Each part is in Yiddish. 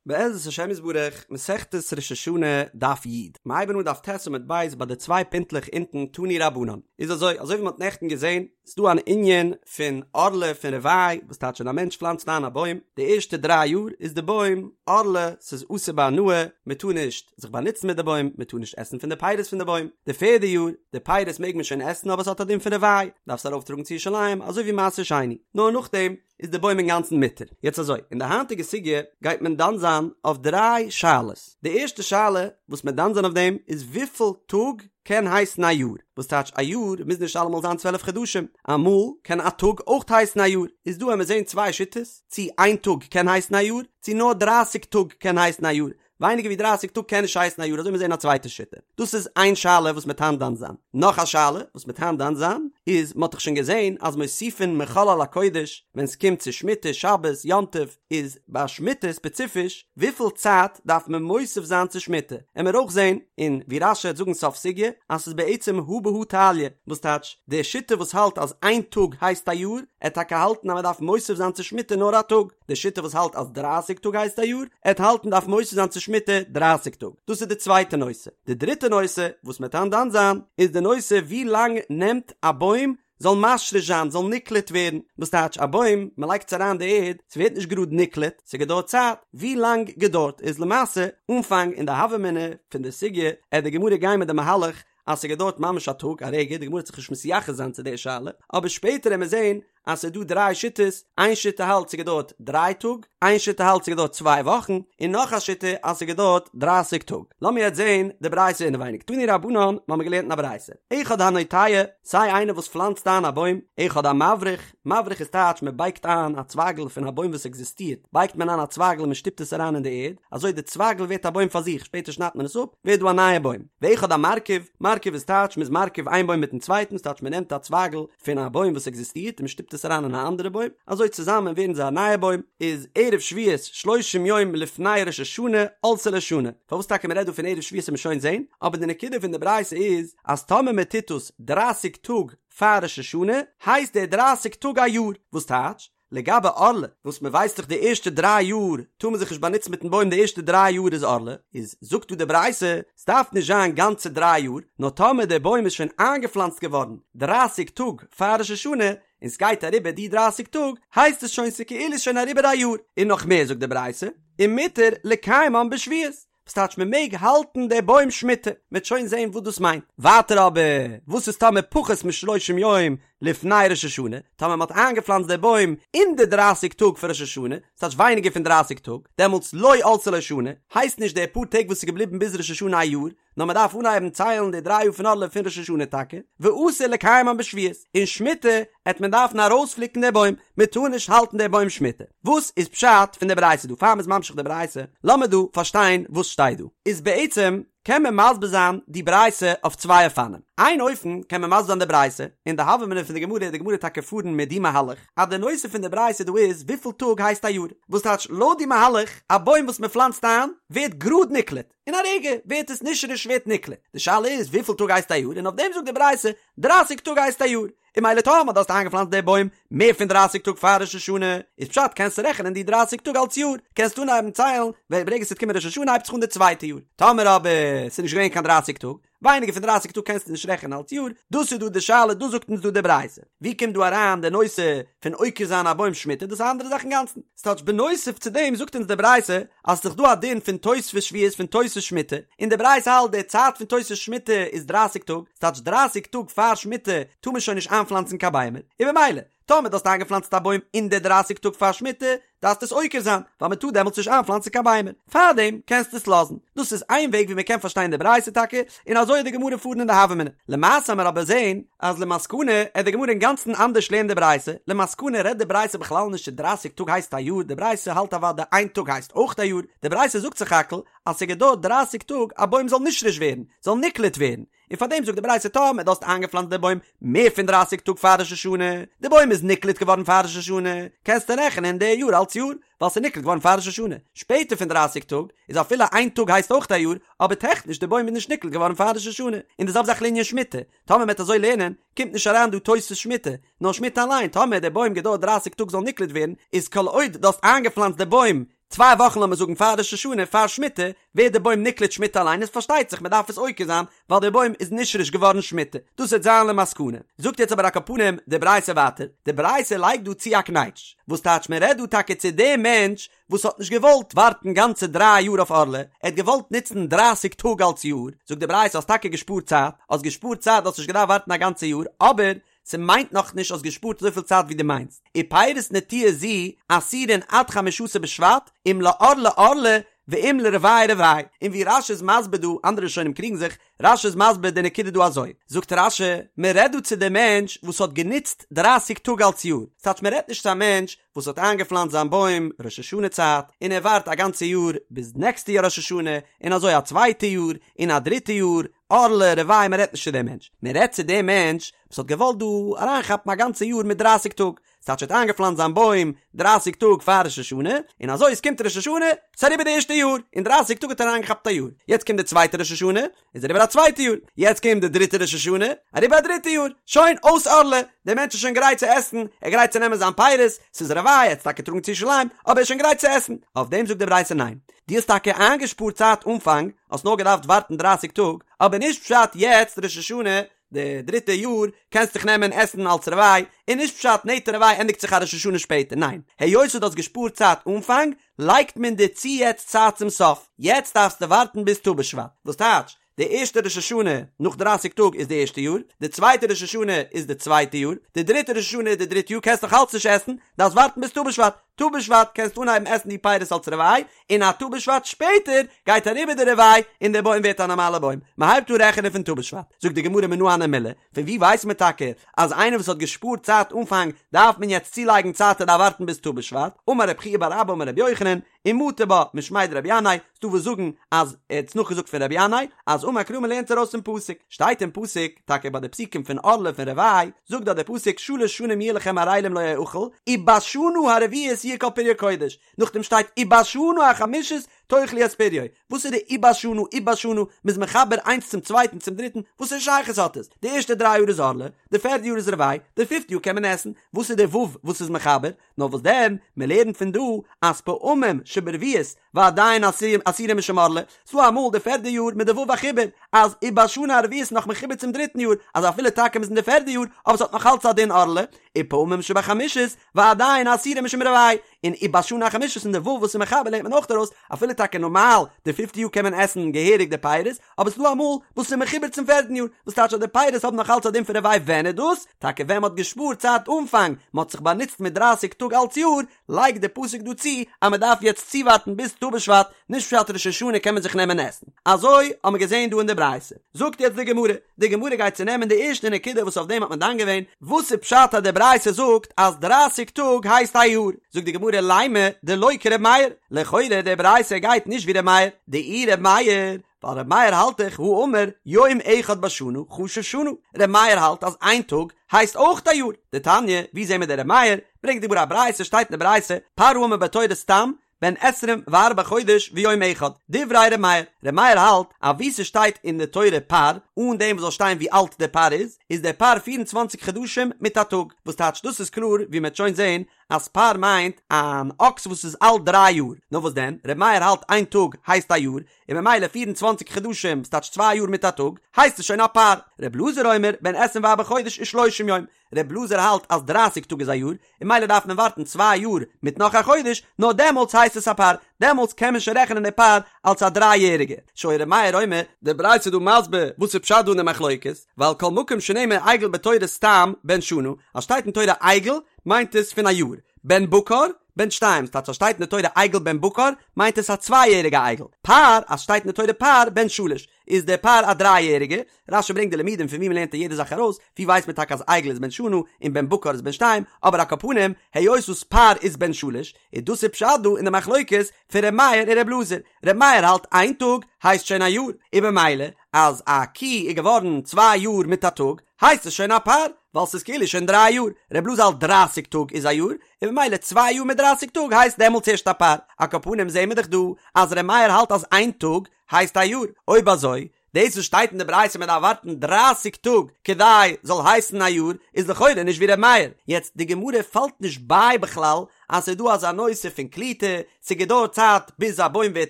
בעזרת השם יתברך, מסכת ראש השנה, דף י'. מ'הייבן אן דף ט' עמוד ב' ביי די צוויי פינטלעך אונטן תנו רבנן. איז אזוי, אזוי ווי מ'האט נעכטן געזען, איז דא אן ענין פון ערלה פון רבעי, וואס טייטש ווען א מענטש פלאנצט איין א בוים, די ערשטע דריי יאר איז די בוים ערלה, ס'איז אסור בהנאה, מ'טאר נישט זיך באנוצן מיט די בוים, מ'טאר נישט עסן פון די פירות פון די בוים. די פערדע יאר, די פירות מעג מען שוין עסן אבער ס'האט א דין פון רבעי, דארפסט ארויפטראגן צו ירושלים, אזוי ווי מעשר שני. נאר נאכדעם, איז די בוים אינגאנצן מותר. יעצט אזוי, אין די היינטיגע סוגיא גייט מען דן זיין אויף דריי שאלות. די ערשטע שאלה וואס מען דן זיין אויף דעם איז וויפיל טאג קען הייסן א יאר? וואס טייטש א יאר מוז נישט אלעמאל זיין 12 חדשים, אמאל קען א טאג אויך הייסן א יאר. איז דא עמיר זעהן צוויי שיטות, צי איין טאג קען הייסן א יאר, צי נאר דרייסיג טאג קען הייסן א יאר. ווייניגער ווי דרייסיג טאג קען נישט הייסן א יאר אזוי מיר זעהן א צווייטע שיטה. דאס איז איין שאלה וואס מ'עט היינט דן זיין. נאך א שאלה וואס מ'עט היינט דן זיין איז מ'האט דאך שוין געזעהן אז מוסיפין מחול על הקודש ווען ס'קומט צו שמיטה שבת יום טוב איז ביי שמיטה ספעציפיש וויפיל צייט דארף מען מוסיף זיין צו שמיטה עמיר אויך זעהן און ווי רש"י העט זאגן סוף סוגיא אז ס'איז בעצם הא בהא תליא וואס טייטש די שיטה וואס האלט אז איין טאג הייסט א יאר עט טאקע האלטן אז מ'דארף מוסיף זיין צו שמיטה נאר א טאג. די שיטה וואס האלט אז דרייסיג טאג הייסט א יאר, עט האלטן דארף מוסיף זיין צו שמיטה דרייסיג טאג. דאס איז די צווייטע נושא. די דריטע נושא וואס מ'עט היינט דן זיין, איז די נושא ווי לאנג נעמט א בוים זאל משריש זיין, זאל נקלט ווערן. וואס טייטש א בוים, מ'לייגט עס אריין די ערד, ס'ווערט נישט גראד נקלט, ס'געדויערט צייט. ווי לאנג געדויערט איז למעשה, אנפאנג אין די הוה אמינא פון די סוגיא, עט די גמרא גיין מיט די מהלך אז ס'געדויערט ממש א טאג, א רגע, די גמרא וועט זיך נישט מתייחס זיין צו די שאלה, אבער שפעטער עמיר זען אז ס'איז דא דריי שיטות, איין שיטה האלט ס'געדויערט דריי טאג, איין שיטה האלט ס'געדויערט צוויי וואכן, און נאך א שיטה אז ס'געדויערט דרייסיג טאג. לאמיר יעצט זען די ברייתא אינעווייניג. תנו רבנן, מ'האמיר געלערנט אין א ברייתא, אחד הנוטע, סיי איינער וואס פלאנצט איין א בוים, אחד המבריך, מבריך איז טייטש מ'בייגט איין א צווייגל פון א בוים וואס עקזיסטירט, בייגט מען איין א צווייגל און מ'שטופט עס אריין אין די ערד, אזוי די צווייגל ווערט א בוים פאר זיך, שפעטער שניידט מען עס אפ, ווערט דא א נייע בוים. ואחד המרכיב, מרכיב איז טייטש מ'איז מרכיב איין בוים מיטן צווייטן, ס'טייטש מ'נעמט א צווייגל פון א בוים וואס עקזיסטירט און מ'שטופט עס אריין אין א אנדערע בוים, אזוי צוזאמען ווערן זיי א נייע בוים, איז ערב שביעית שלושים יום לפני ראש השנה עלתה לו שנה, פארוואס טאקע מ'רעדט דא פון ערב שביעית וועט מען שוין זען, אבער די נקודה פון די ברייתא איז אז טאמער מ'טוט עס דרייסיג טאג פאר ראש השנה הייסט די דרייסיג טאג א יאר, וואס טייטש? לגבי ערלה, וואס מען ווייסט דאך די ערשטע דריי יאר טאר מען זיך נישט באנוצן מיטן בוים די ערשטע דריי יאר איז ערלה, איז זאגט דא די ברייתא, ס'דארף נישט זיין גאנצע דריי יאר, נאר טאמער דער בוים איז שוין איינגעפלאנצט געווארן דרייסיג טאג פאר ראש השנה, און ס'גייט אריבער די דרייסיג טאג, הייסט עס שוין ס'כאילו ס'שוין אריבער א יאר, און נאך מער זאגט די ברייתא, ומותר לקיימן בשביעית, וואס טייטש מען מעג האלטן די בוים שמיטה? מען וועט שוין זען וואס דאס מיינט. ווייטער אבער, וואס איז טאמער פחות משלושים יום לפני ראש השנה, טאמער מען האט איינגעפלאנצט די בוים אין די דרייסיג טאג פון ראש השנה, ס'טייטש ווייניגער פון דרייסיג טאג, דעמאלטס לא עלתה לו שנה, הייסט נישט די פאר טעג וואס איז געבליבן ביז ראש השנה א יאר, נאר מען דארף אנהייבן ציילן די דריי יאר פון ערלה פון ראש השנה טאקע, ואסור לקיימן בשביעית, און שמיטה עט מען דארפן ארויספליקן די בוים, מען טאר נישט האלטן די בוים שמיטה. וואס איז פשט פון די ברייתא דא? פאר מ'איז ממשיך די ברייתא, לאמיר דא פארשטיין וואס שטייט דא. איז בעצם קען מען מסביר זיין די ברייתא אויף צוויי אופנים. איין אופן קען מען מסביר זיין די ברייתא, און די הוה אמינא פון די גמרא איז די גמרא טאקע פארן מיט די מהלך, אז די נושא פון די ברייתא דא איז וויפיל טאג הייסט א יאר. וואס טייטש לויט די מהלך, א בוים וואס מען פלאנצט איין ווערט גראד נקלט. אין א רגע ווערט עס נשרש ווערט נקלט. די שאלה איז וויפיל טאג הייסט א יאר און אויף דעם זאגט די ברייתא דרייסיג טאג הייסט א יאר. און ממילא טאמער דו האסט איינגעפלאנצט די בוים מער פון דרייסיג טאג פאר ראש השנה איז פשט קענסטו רעכענען די דרייסיג טאג אלס יאר קענסט אנהייבן ציילן ווען ברגע ס'וועט קומען ראש השנה הייבט זיך אן די צווייטע יאר. טאמער אבער ס'איז נישט געווען קיין דרייסיג טאג ווייניגער פון דרייסיג טאג קענסטו נישט רעכענען אלס יאר, דאס איז דא די שאלה, דאס זאגט אונז דא די ברייתא. ווי קומט דא אריין די נושא פון עוקר זיין א בוים שמיטה, דאס איז א אנדערע זאך אינגאנצן. ס'טייטש בנוסף צו דעם זאגט אונז די ברייתא אז ס'איז דאך דא א דין פון תוספות שביעית פון תוספות שמיטה, און די ברייתא האלט די צייט פון תוספות שמיטה איז דרייסיג טאג, ס'טייטש דרייסיג טאג פאר שמיטה טאר מען שוין נישט איינפלאנצן קיין ביימער, און במילא טאמער דו האסט איינגעפלאנצט א בוים אין די דרייסיג טאג פאר שמיטה, דארפסטו עס עוקר זיין, ווייל מען טאר דעמאלטס נישט איינפלאנצן קיין ביימער. פארדעם קענסטו עס לאזן. דאס איז איין וועג ווי מען קען פארשטיין די ברייתא טאקע, און אזוי וועט די גמרא פארן אין די הוה אמינא. למעשה עמיר אבער זען אז למסקנא עט די גמרא אינגאנצן אנדערש לערנען די ברייתא, למסקנא רעדט די ברייתא בכלל נישט צו דרייסיג טאג הייסט א יאר, די ברייתא האלט אוודאי איין טאג הייסט אויך א יאר, די ברייתא זאגט סך הכל אז ס'געדויערט דרייסיג טאג א בוים זאל נשרש ווערן, זאל נקלט ווערן, און פאר דעם זאגט די ברייתא טאמער דו האסט איינגעפלאנצט די בוים מער פון דרייסיג טאג פאר ראש השנה, די בוים איז נקלט געווארן פאר ראש השנה, קענסטו רעכענען די יאר אלץ יאר, ווייל ס'איז נקלט געווארן פאר ראש השנה. שפעטער פון דרייסיג טאג איז אפילו איין טאג הייסט אויך א יאר, אבער טעכניש די בוים איז נישט נקלט געווארן פאר ראש השנה. און די זעלבע זאך לענין שמיטה, טאמער מ'עט אזוי לערנען, קומט נישט אריין דא תוספות שמיטה, נאר שמיטה אליין, טאמער די בוים געדויערט דרייסיג טאג זאל נקלט ווערן, איז כל עוד דו האסט איינגעפלאנצט די בוים. צוויי וואכן לאמיר זאגן פאר ראש השנה, פאר שמיטה, ווערט די בוים נקלט שמיטה אליין, איז פארשטייט זיך מען דארף עס עוקר זיין, ווייל די בוים איז נשרש געווארן שמיטה. דאס וועט זיין למסקנה. זאגט יעצט אבער על כל פנים די ברייתא ווייטער, די ברייתא לייגט דא צו א קנייטש, וואס טייטש מען רעדט דא טאקע צו דעם מענטש וואס האט נישט געוואלט ווארטן גאנצע דריי יאר אויף ערלה, ער האט געוואלט נוצן דרייסיג טאג אלס יאר, זאגט די ברייתא האסט טאקע געשפארט צייט, האסט געשפארט צייט האסט נישט געדארפט ווארטן א גאנצע יאר, אבער ס'מיינט נאך נישט האסט געשפארט אזויפיל צייט ווי דו מיינסט, ופירות נטיעה זו אסורין עד חמשה עשר בשבט, אם לערלה ערלה ואם לרבעי רבעי, און ווי רש"י איז מסביר דא, אנדערע ראשונים קריגן זיך, רש"י איז מסביר די נקודה דא אזוי, זאגט רש"י, מען רעדט דא צו די מענטש וואס האט גענוצט דרייסיג טאג אלס יאר, ס'טייטש מען רעדט נישט צו א מענטש וואס האט איינגעפלאנצט זיין בוים ראש השנה צייט, און ער ווארט א גאנצע יאר ביז נעקסטע יאר ראש השנה, און אזוי א צווייטע יאר, און א דריטע יאר, ערלה, רבעי, מען רעדט נישט צו דעם מענטש, מען רעדט צו דעם מענטש וואס האט געוואלט דא אריינכאפן א גאנצע יאר מיט דרייסיג טאג, ס'טייטש ער האט איינגעפלאנצט זיין בוים דרייסיג טאג פאר ראש השנה, און אזוי עס קומט ראש השנה, ס'איז אריבער די ערשטע יאר, אין דרייסיג טאג האט ער אריינגעכאפט א יאר, יעצט קומט די צווייטע ראש השנה, איז אריבער א צווייטע יאר, יעצט קומט די דריטע ראש השנה, אריבער א דריטע יאר, שוין, אויס ערלה, דער מענטש איז שוין גרייט צו עסן, ער איז גרייט צו נעמען זיין פירות, ס'איז רבעי, ער האט עס טאקע טראגן צו ירושלים, אבער ער איז שוין גרייט צו עסן, אויף דעם זאגט די ברייתא ניין, דו האסט טאקע איינגעשפארט צייט אנפאנג, האסט נאר געדארפט ווארטן דרייסיג טאג, אבער נישט פשט יעצט ראש השנה, די דריטע יאר קענסט דיך נעמען עסן אלס רבעי, און נישט פשט נטע רבעי ענדיגט זיך א ראש השנה שפעטער, ניין, היות דו האסט געשפארט צייט אנפאנג, לייגט מען דיר צו יעצט צייט צום סוף, יעצט דארפסטו ווארטן ביז ט"ו בשבט, וואס טייטש, די ערשטע ראש השנה נאך דרייסיג טאג איז די ערשטע יאר, די צווייטע ראש השנה איז די צווייטע יאר, די דריטע ראש השנה איז די דריטע יאר, קענסט נאך אלץ נישט עסן, דארפסט ווארטן ביז ט"ו בשבט, ט"ו בשבט קענסטו אנהייבן עסן די פירות אלס רבעי, און א ט"ו בשבט שפעטער גייט אריבער די רבעי און דער בוים ווערט א נארמאלער בוים, מען הייבט אן רעכענען פון ט"ו בשבט. זאגט די גמרא מנא הני מילי, פון וואו ווייסט מען טאקע אז איינער וואס האט געשפארט צייט אנפאנג דארף מען יעצט צולייגן צייט ער דארף ווארטן ביז ט"ו בשבט, אמר רב חייא בר אבא אמר רבי יוחנן, ומטו בה משמיה דרבי ינאי, ס'דא וואס זאגן אז ער האט עס נאכגעזאגט פון רבי ינאי, אז אמר קרא מען לערנט ארויס פון פסוק, שטייט אין פסוק, טאקע ביי די פסוקים פון ערלה פון רבעי, זאגט דארט דער פסוק שלש שנים יהיה לכם ערלים לא יאכל, ובשנה הרביעית יהיה כל פריו קודש, נאכדעם שטייט ובשנה החמישית תאכלו את פריו, וואס איז די ובשנה ובשנה, מ'איז מחבר איינס צום צווייטן צום דריטן, וואס א שייכות האט עס? די ערשטע דריי יאר איז ערלה, די פערדע יאר איז רבעי, די פיפטע יאר קען מען עסן, וואס איז די ו' וואס איז מחבר? נאר וואס דען, מען לערנט פון דא אז פעמים שברביעית ועדיין אסורים משום ערלה, ס'דא אמאל די פערדע יאר מיט די ו' החיבור, אז ובשנה הרביעית נאך מחובר צום דריטן יאר, אז אפילו טאקע מ'איז אין די פערדע יאר, אבער ס'האט נאך אלץ א דין ערלה, ופעמים שבחמישית ועדיין אסורים משום רבעי, און ובשנה החמישית און די ו' וואס איז מחבר לערנט מען אויך ארויס, אפילו טאקע נארמאל די פיפטע יאר קען מען עסן געהעריג די פירות, אבער ס'דא אמאל וואס ס'איז מחובר צום פערטן יאר, וואס טייטש אז די פירות האבן נאך אלץ א דין פון רבעי ווען איז דאס? טאקע ווען מ'האט געשפארט צייט אנפאנג, מ'האט זיך באנוצט מיט דרייסיג טאג אלץ יאר, לייגט די פסוק דא צו אז מ'דארף יעצט צואווארטן ביז ט"ו בשבט, נישט פשט ראש השנה קען מען זיך נעמען עסן. אזוי האבן מיר געזען דא אין די ברייתא. זאגט יעצט די גמרא, די גמרא גייט צונעמען די ערשטע נקודה וואס אויף דעם האט מען דן געווען, וואס איז פשט אז די ברייתא זאגט אז דרייסיג טאג הייסט א יאר? זאגט די גמרא לימא דלא כר' מאיר, לכאורה די ברייתא גייט נישט ווי ר' מאיר, דאי ר' מאיר, ווייל ר' מאיר האלט דאך הא אמר יום אחד בשנה חשוב שנה, ר' מאיר האלט אז איין טאג הייסט אויך א יאר, דתניא, ווי זעהן מיר די ר' מאיר, ברענגט די גמרא א ברייתא שטייט אין די ברייתא פר האמור בתורה סתם בן עשרים וארבעה חודש ויום אחד, דברי ר' מאיר, ר' מאיר האלט אז וואו ס'שטייט אין די תורה פר, אן דעם וואס זאל שטיין ווי אלט דער פר איז, איז דער פר פיר און צוואנציג חדשים מיט א טאג, וואס טייטש דאס איז קלאר ווי מ'עט שוין זעהן אז פר מיינט אן אקס וואס איז אלט דריי יאר, נאר וואס דען, ר' מאיר האלט איין טאג הייסט א יאר, און ממילא פיר און צוואנציג חדשים, וואס טייטש צוויי יאר מיט א טאג, הייסט עס שוין א פר. ר' אלעזר אומר, בן עשרים וארבעה חודש ושלושים יום, ר' אלעזר האלט אז דרייסיג טאג איז א יאר, און ממילא דארף מען ווארטן צוויי יאר מיט נאך א חודש, נאר דעמאלטס הייסט עס א פר, דעמאלטס קען מען שוין רעכענען די פר אלס א דריי יעריגע, שהיה ר' מאיר אומר. די ברייתא איז דא מסביר וואס איז פשט דא אין די מחלוקת, ווייל כל מקום שנאמר עגל בתורה סתם בן שנה, אז שטייט אין תורה עגל מיינט עס פון א יאר, בן בקר בן שתיים, ס'טייטש אז שטייט אין די תורה עגל בן בקר מיינט עס א צוויי יעריגע עגל, פר אז שטייט אין די תורה פר בן שלש איז דער פר א דריי יעריגע, רש"י ברענגט די לימודים פון ווי מ'לערנט יעדע זאך ארויס, ווי ווייסט מען טאקע אז עגל איז בן שנה און בן בקר איז בן שתיים, אבער על כל פנים, היות וואס פר איז בן שלש, איז דאס איז פשט דא אין די מחלוקת פון ר' מאיר און ר' אלעזר, ר' מאיר האלט איין טאג הייסט שוין א יאר, און במילא אז א קי איז געווארן צוויי יאר מיט א טאג הייסט עס שוין א פר, ווייל ס'איז כאילו שוין דריי יאר, ר' אלעזר האלט דרייסיג טאג איז א יאר, און במילא צוויי יאר מיט דרייסיג טאג הייסט דעמאלטס ערשט א פר, על כל פנים זעהן מיר דאך דא אז ר' מאיר האלט אז איין טאג הייסט א יאר, אויב אזוי. דאס וואס שטייט אין די ברייתא מען דארף ווארטן דרייסיג טאג כדי זאל הייסן א יאר איז לכאורה נישט ווי ר' מאיר, יעצט די גמרא פאלט נישט ביי בכלל אז ס'איז דא אזא נושא פון קליטה, ס'געדויערט צייט ביז א בוים ווערט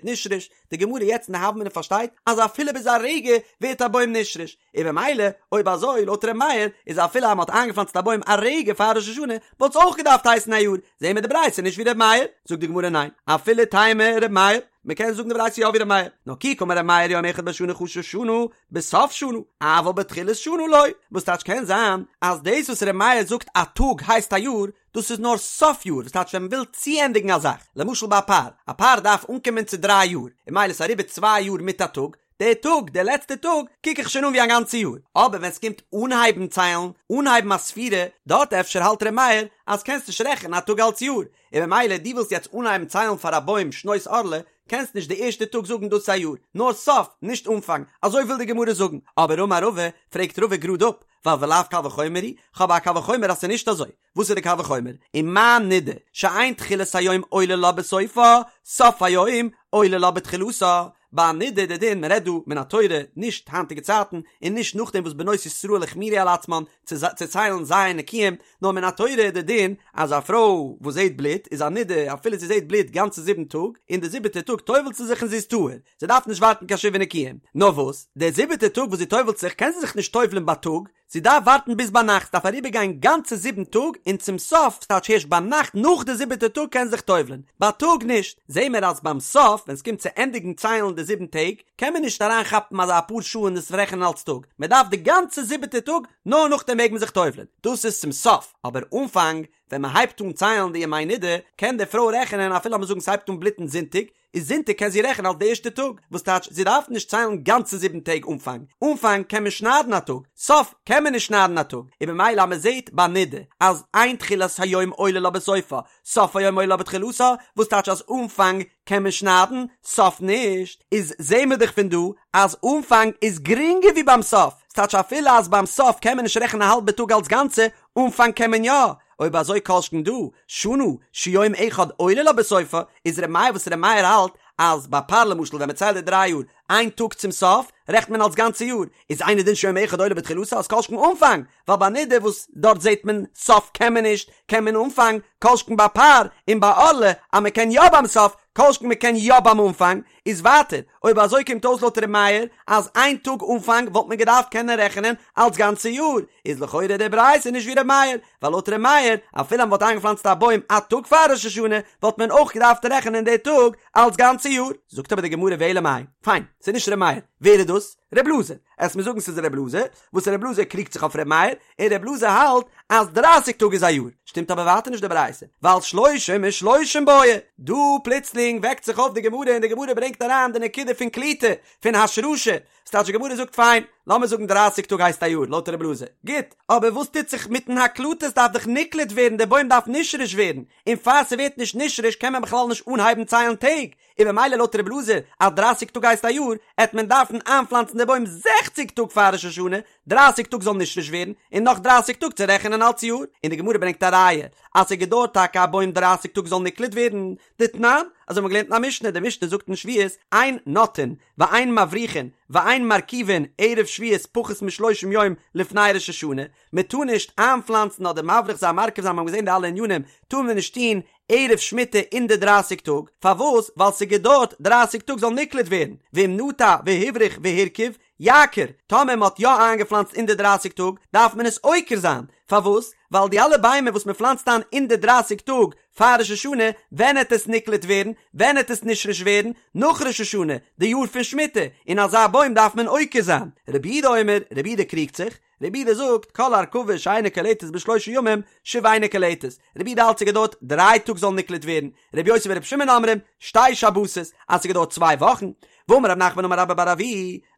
נשרש, די גמרא יעצט אין די הוה אמינא פארשטייט אז אפילו ביז א רגע ווערט א בוים נשרש, און במילא אויב אזוי לויט ר' מאיר איז אפילו אז מ'האט איינגעפלאנצט א בוים א רגע פאר ראש השנה וואלט עס אויך געדארפט הייסן א יאר, זעהן מיר די ברייתא נישט ווי ר' מאיר, זאגט די גמרא ניין, אפילו תימא ר' מאיר, מ'קען זאגן די ברייתא יא ווי ר' מאיר, נאר כי קאמר ר' מאיר יום אחד בשנה חשוב שנה בסוף שנה, אבל בתחילת שנה לא, וואס טייטש קען זיין אז דאס וואס ר' מאיר זאגט א טאג הייסט א יאר, דאס איז נאר סוף יאר, וואס טייטש ווען מען וויל צוענדיגן א זאך, למשל ביי א פר, א פר דארף אנקומען צו דריי יאר, און ממילא איז אריבער צוויי יאר מיט א טאג, דער טאג, דער לעצטער טאג, קוק איך שוין אן ווי א גאנצע יאר, אבער ווען ס'קומט אנהייבן ציילן, אנהייבן א ספירה, דארט אפשר האלט ר' מאיר אז קענסט נישט רעכענען א טאג אלס יאר, און ממילא דו ווילסט יעצט אנהייבן ציילן פאר א בוים שנות ערלה, קענסט נישט די ערשטע טאג זאגן דאס איז א יאר, נאר סוף, נישט אנפאנג, אזוי וויל די גמרא זאגן, אבער אמר רבא, פרעגט רבא גראד אפ, ווייל ולאו קל וחומר הוא, כ'האב א קל וחומר אז ס'איז נישט אזוי, וואס איז די קל וחומר? ומה נידה שאין תחילת היום עולה לה בסופה, סוף היום עולה לה בתחילתה. ביי א נידה די דין, מען רעדט דא מן התורה, נישט היינטיגע צייטן, און נישט נאכדעם וואס בנות ישראל החמירו על עצמן צו צו ציילן ז' נקיים, נאר מן התורה די דין אז א פרוי וואס זעט בלוט איז א נידה אפילו זי זעט בלוט גאנצע זיבן טאג, און די זיבעטע טאג טובל'ט זי זיך און זי איז טהור, זי דארף נישט ווארטן קיין שבעה נקיים. נאר וואס, די זיבעטע טאג וואס זי טובל'ט זיך קען זי זיך נישט טובל'ן בייטאג, זי דארף ווארטן ביז ביינאכט, ס'דארף אריבערגיין גאנצע זיבן טאג, און צום סוף, ס'טייטש הערשט ביינאכט נאך די זיבעטע טאג קען זי זיך טובל'ען, בייטאג נישט. זעהן מיר אז ביים סוף, ווען ס'קומט צו ענדיגן ציילן די זיבן טעג, קען מען נישט אריין כאפן אזא אפאר שעה און עס רעכענען אלס טאג, מען דארף די גאנצע זיבעטע טאג, נאר נאכדעם מעג מען זיך טובל'ען. דאס איז צום סוף, אבער אנפאנג, ווען מען הייבט אן ציילן די ימי נידה, קען די פרוי רעכענען אפילו לאמיר זאגן ס'הייבט אן בלוטן זונטאג, איז זונטאג קען זי רעכענען אלס די ערשטע טאג, וואס טייטש זי דארף נישט ציילן גאנצע זיבן טעג אנפאנג, אנפאנג קען מען שניידן א טאג, סוף קען מען נישט שניידן א טאג, און במילא אז מען זעט ביי נידה אז אין תחילת היום עולה לה בסופה, סוף היום עולה לה בתחילתה, וואס טייטש אז אנפאנג קען מען שניידן, סוף נישט, איז זעהן מיר דאך פון דא אז אנפאנג איז גרינגער ווי ביים סוף, ס'טייטש אפילו אז ביים סוף קען מען נישט רעכענען א האלבע טאג אלס גאנצע, אנפאנג קען מען יא, אויב אזוי כל שכן דא, שנה, שיום אחד עולה לה בסופה, איז ר' מאיר וואס ר' מאיר האלט אז ביי פר למשל ווען מען ציילט די דריי יאר, איין טאג צום סוף, רעכנט מען אלס גאנצע יאר, איז אינו דין שיום אחד עולה בתחילתה אז כל שכן אנפאנג, ווייל ביי נידה וואס דארט זעט מען סוף קען מען נישט, קען מען אנפאנג, כל שכן ביי פר און ביי ערלה אז מען קען יא ביים סוף, כל שכן מען קען יא ביים אנפאנג, איז ווייטער, אויב אזוי קומט אויס לויט ר' מאיר אז איין טאג אנפאנג וואלט מען געדארפט קענען רעכענען אלס גאנצע יאר, איז לכאורה די ברייתא נישט ווי ר' מאיר, ווייל לויט ר' מאיר אפילו אז מען וואלט איינגעפלאנצט א בוים א טאג פאר ראש השנה וואלט מען אויך געדארפט רעכענען די טאג אלס גאנצע יאר. זאגט אבער די גמרא ואלא מאי, פיין, ס'איז נישט ר' מאיר, ווער איז דאס? ר' אלעזר, עסט מיר זאגן ס'איז ר' אלעזר, וואס ר' אלעזר קריגט זיך אויף ר' מאיר, און ר' אלעזר האלט אז דרייסיג טאג איז א יאר, שטימט אבער ווייטער נישט די ברייתא, ווייל שלושים ושלושים בעי, דא פלוצלינג וועקט זיך אויף די גמרא און די גמרא ברענגט אריין די נקודה פון קליטה, פון השרשה, ס'טייטש די גמרא זאגט פיין, לאמיר זאגן דרייסיג טאג הייסט א יאר לויט ר' אלעזר, גוט, אבער וואס טוט זיך מיטן הקלטה, ס'דארף דאך נקלט ווערן, די בוים דארף נשרש ווערן, און פאר ס'ווערט נישט נשרש קען מען בכלל נישט אנהייבן ציילן טעג, און במילא לויט רב אלעזר אז דרייסיג טאג הייסט א יאר, עט מען דארפן איינפלאנצן די בוים זעכציג טאג פאר ראש השנה, דרייסיג טאג זאל נשרש ווערן, און נאך דרייסיג טאג צו רעכענען אלץ יאר, און די גמרא ברענגט א ראיה אז ס'געדויערט טאקע א בוים דרייסיג טאג זאל נקלט ווערן, דתנן, אזוי האבן מיר געלערנט אין א משנה, די משנה זאגט אין שביעית, אין נוטעין, ואין מבריכין, ואין מרכיבין, ערב שביעית פחות משלושים יום לפני ראש השנה, מען טאר נישט איינפלאנצן אדער מבריך זיין מרכיב זיין מיר האבן געזען די אלע ענינים, טאר מען נישט טון ערב שמיטה אין די דרייסיג טאג, פארוואס? ווייל ס'געדויערט דרייסיג טאג זאל נקלט ווערן, ואם נטע והבריך והרכיב, יעקור, טאמער מען האט יא איינגעפלאנצט אין די דרייסיג טאג, דארף מען עס עוקר זיין, פארוואס? ווייל די אלע ביימער וואס מען פלאנצט איין אין די דרייסיג טאג פאר ראש השנה, ווען העט עס נקלט ווערן? ווען העט עס נשרש ווערן? נאך ראש השנה, די יאר פון שמיטה, און אזא בוים דארף מען עוקר זיין. רבי יהודה אומר, רבי יהודה קריגט זיך, רבי יהודה זאגט, כל הרכבה שאינה קולטת בשלושה ימים, שוב אינה קולטת. רבי יהודה האלט ס'געדויערט דריי טאג זאל נקלט ווערן, רבי יוסי ברבי שמעון אומרים, שתי שבתות, אז ס'געדויערט צוויי וואכן. ואמר רב נחמן אמר רבה בר אבוה,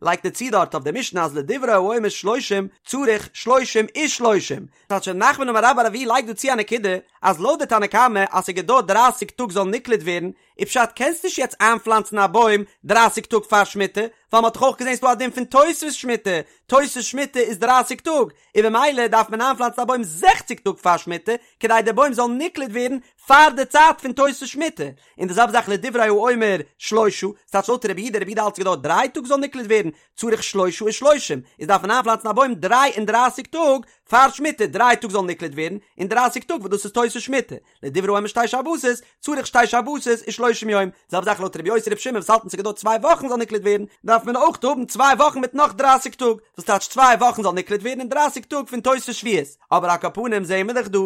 לייגט ער צו דארט אויף די משנה אז לדברי האומר שלושים צריך שלושים ושלושים. טייטש רב נחמן אמר רבה בר אבוה לייגט דא צו א נקודה, אז לויט די תנא קמא אז ס'געדויערט דרייסיג טאג זאל נקלט ווערן, איז פשט קענסט נישט יעצט איינפלאנצן א בוים דרייסיג טאג פאר שמיטה, ווייל מ'האט דאך אויך געזען ס'דא א דין פון תוספות שמיטה, תוספות שמיטה איז דרייסיג טאג, און במילא דארף מען איינפלאנצן א בוים זעכציג טאג פאר שמיטה, כדי דער בוים זאל נקלט ווערן פאר די צייט פון תוספות שמיטה, און די זעלבע זאך לדברי האומר שלושה, ס'טייטש לויט רבי יהודה, רבי יהודה האלט ס'געדויערט דריי טאג זאל נקלט ווערן, צריך שלושה ושלושים, איז דארף מען איינפלאנצן א בוים דריי און דרייסיג טאג פאר שמיטה, דריי טאג זאל נקלט ווערן, און דרייסיג טאג וואס דאס איז תוספות שמיטה, לדברי האומר שתי שבתות, צריך שתי שבתות ושלושים יום, זעלבע זאך לויט רבי יוסי רבי שמעון וואס האלטן ס'געדויערט צוויי וואכן זאל נקלט ווערן, דארף מען אויך האבן צוויי וואכן מיט נאך דרייסיג טאג, וואס טייטש צוויי וואכן זאל נקלט ווערן און דרייסיג טאג פון תוספות שביעית, אבער על כל פנים זעהן מיר דאך דא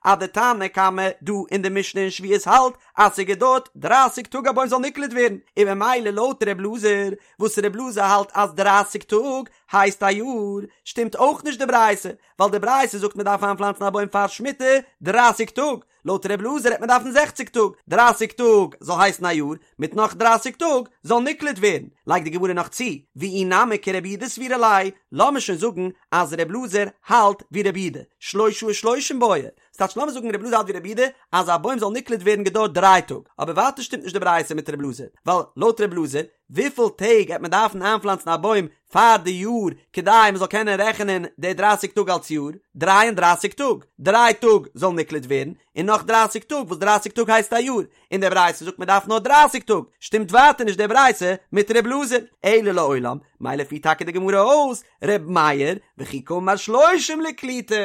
אז די תנא קמא דא אין די משנה אין שביעית האלט אז ס'געדויערט דרייסיג טאג א בוים זאל נקלט ווערן, און ממילא לויט ר' אלעזר וואס ר' אלעזר האלט אז דרייסיג טאג הייסט א יאר, שטימט אויך נישט די ברייתא, ווייל די ברייתא זאגט מען דארף איינפלאנצן א בוים פאר שמיטה דרייסיג טאג, לויט ר' אלעזר העט מען דארפן זעכציג טאג, דרייסיג טאג זאל הייסן א יאר, מיט נאך דרייסיג טאג זאל נקלט ווערן, לייגט די גמרא נאך צו, ואי נמי כרבי יהודה סבירא ליה, לאמיר שוין זאגן אז ר' אלעזר האלט ווי רבי יהודה, שלושה ושלושים בעי, ס'טייטש לאמיר זאגן ר' אלעזר האלט ווי רבי יהודה אז א בוים זאל נקלט ווערן געדויערט דריי טאג, אבער ווייטער שטימט נישט די ברייתא מיט ר' אלעזר, ווייל לויט ר' אלעזר וויפיל טעג העט מען דארפן איינפלאנצן א בוים פאר די יאר כדי מען זאל קענען רעכענען די דרייסיג טאג אלס יאר? דריי און דרייסיג טאג! דריי טאג זאל נקלט ווערן, און נאך דרייסיג טאג וואס דרייסיג טאג הייסט א יאר, און די ברייתא זאגט מען דארף נאר דרייסיג טאג, שטימט ווייטער נישט די ברייתא מיט ר' אלעזר, אלא לעולם, מילא פירט טאקע די גמרא אויס ר' מאיר, וכי קאמר שלושים לקליטה,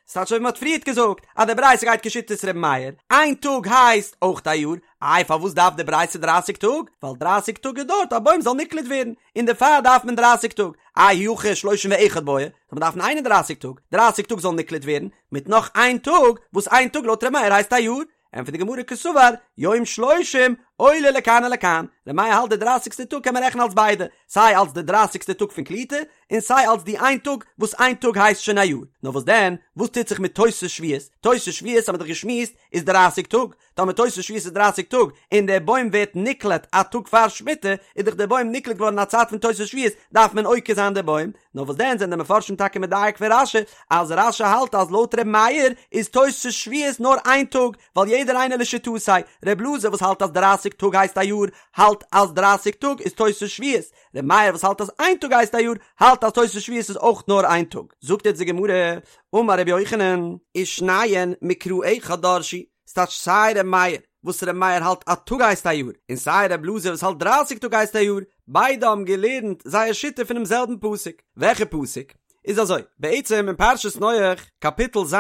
ס'טייטש אזוי ווי מ'האט פריערט געזאגט אז די ברייתא גייט כשיטת ר' מאיר, איין טאג הייסט אויך א יאר, איי פארוואס דארף די ברייתא דרייסיג טאג? ווייל דרייסיג טאג געדויערט א בוים זאל נקלט ווערן, און דערפאר דארף מען דרייסיג טאג, אי הכי שלושים ואחד בעי, זאל מען דארפן איין און דרייסיג טאג, דרייסיג טאג זאל נקלט ווערן, מיט נאך איין טאג, וואס איין טאג לויט ר' מאיר הייסט א יאר, ענטפערט די גמרא קסבר, יום שלושים עולה לכאן ולכאן, ר' מאיר האלט די דרייסיגסטע טאג קען מען רעכענען אלס ביידע, סיי אלס די דרייסיגסטע טאג פון קליטה, און סיי אלס די איין טאג וואס איין טאג הייסט שוין א יאר, נאר וואס דען, וואס טוט זיך מיט תוספות שביעית, תוספות שביעית האבן מיר דאך געשמועסט איז דרייסיג טאג, טאמער תוספות שביעית איז דרייסיג טאג, און דער בוים ווערט נקלט א טאג פאר שמיטה, איז דאך דער בוים נקלט געווארן אין א צייט פון תוספות שביעית, דארף מען עוקר זיין דער בוים, נאר וואס דען זענען די מפרשים טאקע מדייק פון רש"י, אז רש"י האלט אז לויט ר' מאיר איז תוספות שביעית נאר איין טאג, ווייל יעדער איינער לשיטתו, ר' אלעזר וואס האלט אז דרייסיג טאג הייסט א יאר, האלט אז דרייסיג טאג איז תוספות שביעית, ר' מאיר וואס האלט אז איין טאג הייסט א יאר, האלט אז תוספות שביעית איז אויך נאר איין טאג. זאגט יעצט די גמרא, אמר רבי יוחנן, ושניהן מקרא אחד דרשו, ס'טייטש סיי ר' מאיר וואס ר' מאיר האלט א טאג הייסט א יאר, און סיי ר' אלעזר וואס האלט דרייסיג טאג הייסט א יאר, ביידע האבן געלערנט זייער שיטה פונעם זעלבן פסוק. וועלכע פסוק? איז אזוי, בעצם אין פרשת נח, קאפיטל ז',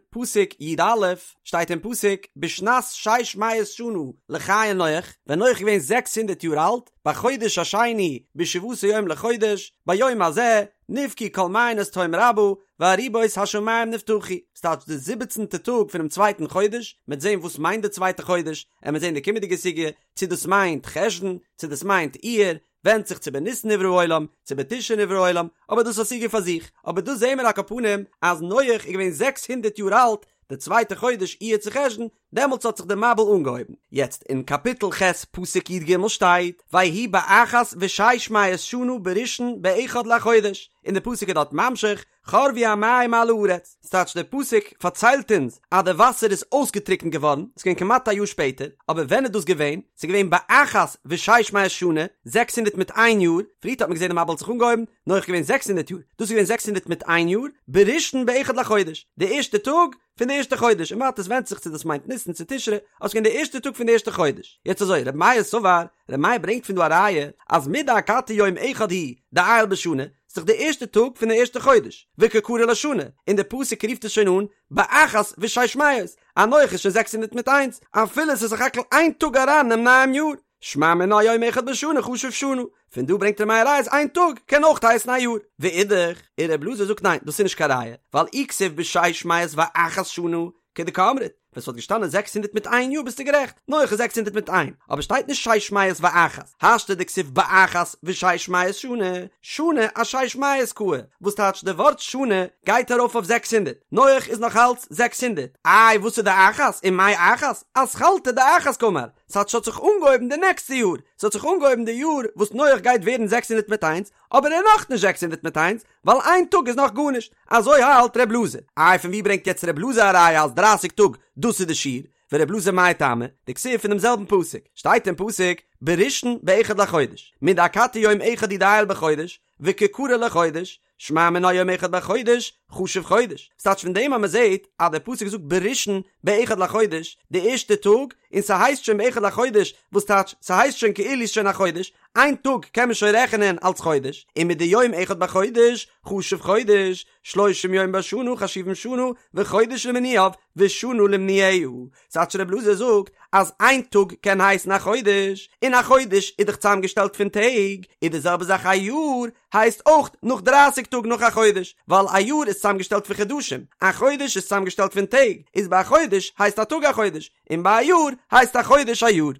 פסוק י"א, שטייט אין פסוק, בשנת שש מאות שנה לחיי נח, ווען נח איז געווען זעקס הונדערט יאר אלט, בחודש השני, בשבעה עשר יום לחודש, ביום הזה, נבקעו כל מעיינות תהום רבה, וארובות השמים נפתחו, ס'טייטש די זיבעצנטע טאג פונעם צווייטן חודש, מ'עט זען וואס מיינט די צווייטע חודש, עמער זען די קומענדיגע סוגיא, צו דאס מיינט חשון, צו דאס מיינט אייר, ווענדט זיך צו בניסן נברא העולם, צו בתשרי נברא העולם, אבער דאס איז א סוגיא פאר זיך, אבער דא זעהן מיר על כל פנים אז נח איז געווען זעקס הונדערט יאר אלט, די צווייטע חודש אייר צו חשון, דעמאלטס האט זיך די מבול אנגעהויבן. יעצט אין קאפיטל ח' פסוק י"ג שטייט, ויהי באחת ושש מאות שנה בראשון באחד לחודש, און די פסוק איז דארט ממשיך, חרבו המים מעל הארץ, ס'טייטש דער פסוק פארציילט אונז אז די וואסער איז אויסגעטריקנט געווארן, ס'איז געווען כמעט א יאר שפעטער, אבער ווען איז דאס געווען? ס'איז געווען באחת ושש מאות שנה, זעקס הונדערט מיט איין יאר, פריערט האט מען געזען די מבול האט זיך אנגעהויבן, נח איז געווען זעקס הונדערט יאר, דאס איז געווען זעקס הונדערט מיט איין יאר, בראשון באחד לחודש, די ערשטע טאג פון די ערשטע חודש, און ווייטער עס ווענדט זיך צו דאס מיינט ניסן צו תשרי, אבער ס'איז געווען די ערשטע טאג פון די ערשטע חודש. יעצט אזוי, רבי מאיר סבר, רבי מאיר ברענגט פון דא א ראיה, אז מדאכתי יום אחד הוא דעייל בשנה, ס'איז דאך די ערשטע טאג פון די ערשטע חודש, וקא קרי לה שנה, און די פסוק רופט עס שוין אן באחת ושש מאות, אז נח איז שוין זעקס הונדערט מיט איינס, אפילו ס'איז סך הכל איין טאג אריין אינעם נייעם יאר. שמע מינה יום אחד בשנה חשוב שנה, פון דא ברענגט ר' מאיר א ראיה אז איין טאג קען אויך הייסן א יאר. ואידך, און ר' אלעזר זאגט ניין דאס איז נישט קיין ראיה, ווייל אי כתיב בשש מאות ואחת שנה כדקאמרת, ווען ס'וואלט געשטאנען זעקס הונדערט מיט איין יאר ביסטו גערעכט, נח איז זעקס הונדערט מיט איין, אבער שטייט נישט שש מאות ואחת, השתא דכתיב באחת ושש מאות שנה, שנה אשש מאות קאי, וואס טייטש די ווארט שנה גייט ארויף אויף זעקס הונדערט, נח איז נאך אלץ זעקס הונדערט, איי וואס איז די אחת ומאי אחת, אתחלתא דאחת קאמר, ס'טייטש ס'האט זיך אנגעהויבן די נעקסטע יאר, ס'האט זיך אנגעהויבן די יאר וואס נח גייט ווערן זעקס הונדערט מיט איינס, אבער ער איז נאכנישט זעקס הונדערט מיט איינס, ווייל איין טאג איז נאך גארנישט, אזוי האלט ר' אלעזר. איי פון ווי ברענגט יעצט ר' אלעזר א ראיה אז דרייסיג טאג דאס איז די שיעור? ור' אלעזר מאי טעמא, דכתיב פון דעם זעלבן פסוק, שטייט אין פסוק, בראשון באחד לחודש, מדאכתי יום אחד הוא דעייל בחודש, וקא קרי ליה חודש, שמע מינה יום אחד בחודש, חשוב חודש. ס'טייטש פון דעם אז מ'זעט אז דער פסוק זאגט בראשון באחד לחודש, די ערשטע טאג, און ס'הייסט שוין באחד לחודש, וואס טייטש ס'הייסט שוין כאילו ס'איז שוין א חודש, איין טאג קען מען שוין רעכענען אלס חודש, און מדיום אחד בחודש, חשוב חודש, שלושים יום בשנה חשובים שנה, וחודש למנויו, ושנה למנויה. ס'טייטש ר' אלעזר זאגט אז איין טאג קען הייסן א חודש, און א חודש איז דאך צוזאמגעשטעלט פון טעג, איז די זעלבע זאך א יאר הייסט אויך נאך דרייסיג טאג נאך א חודש, ווייל א יאר איז צוזאמגעשטעלט פון חדשים, א חודש איז צוזאמגעשטעלט פון טעג, איז ביי א חודש הייסט א טאג א חודש, און ביי א יאר הייסט א חודש א יאר.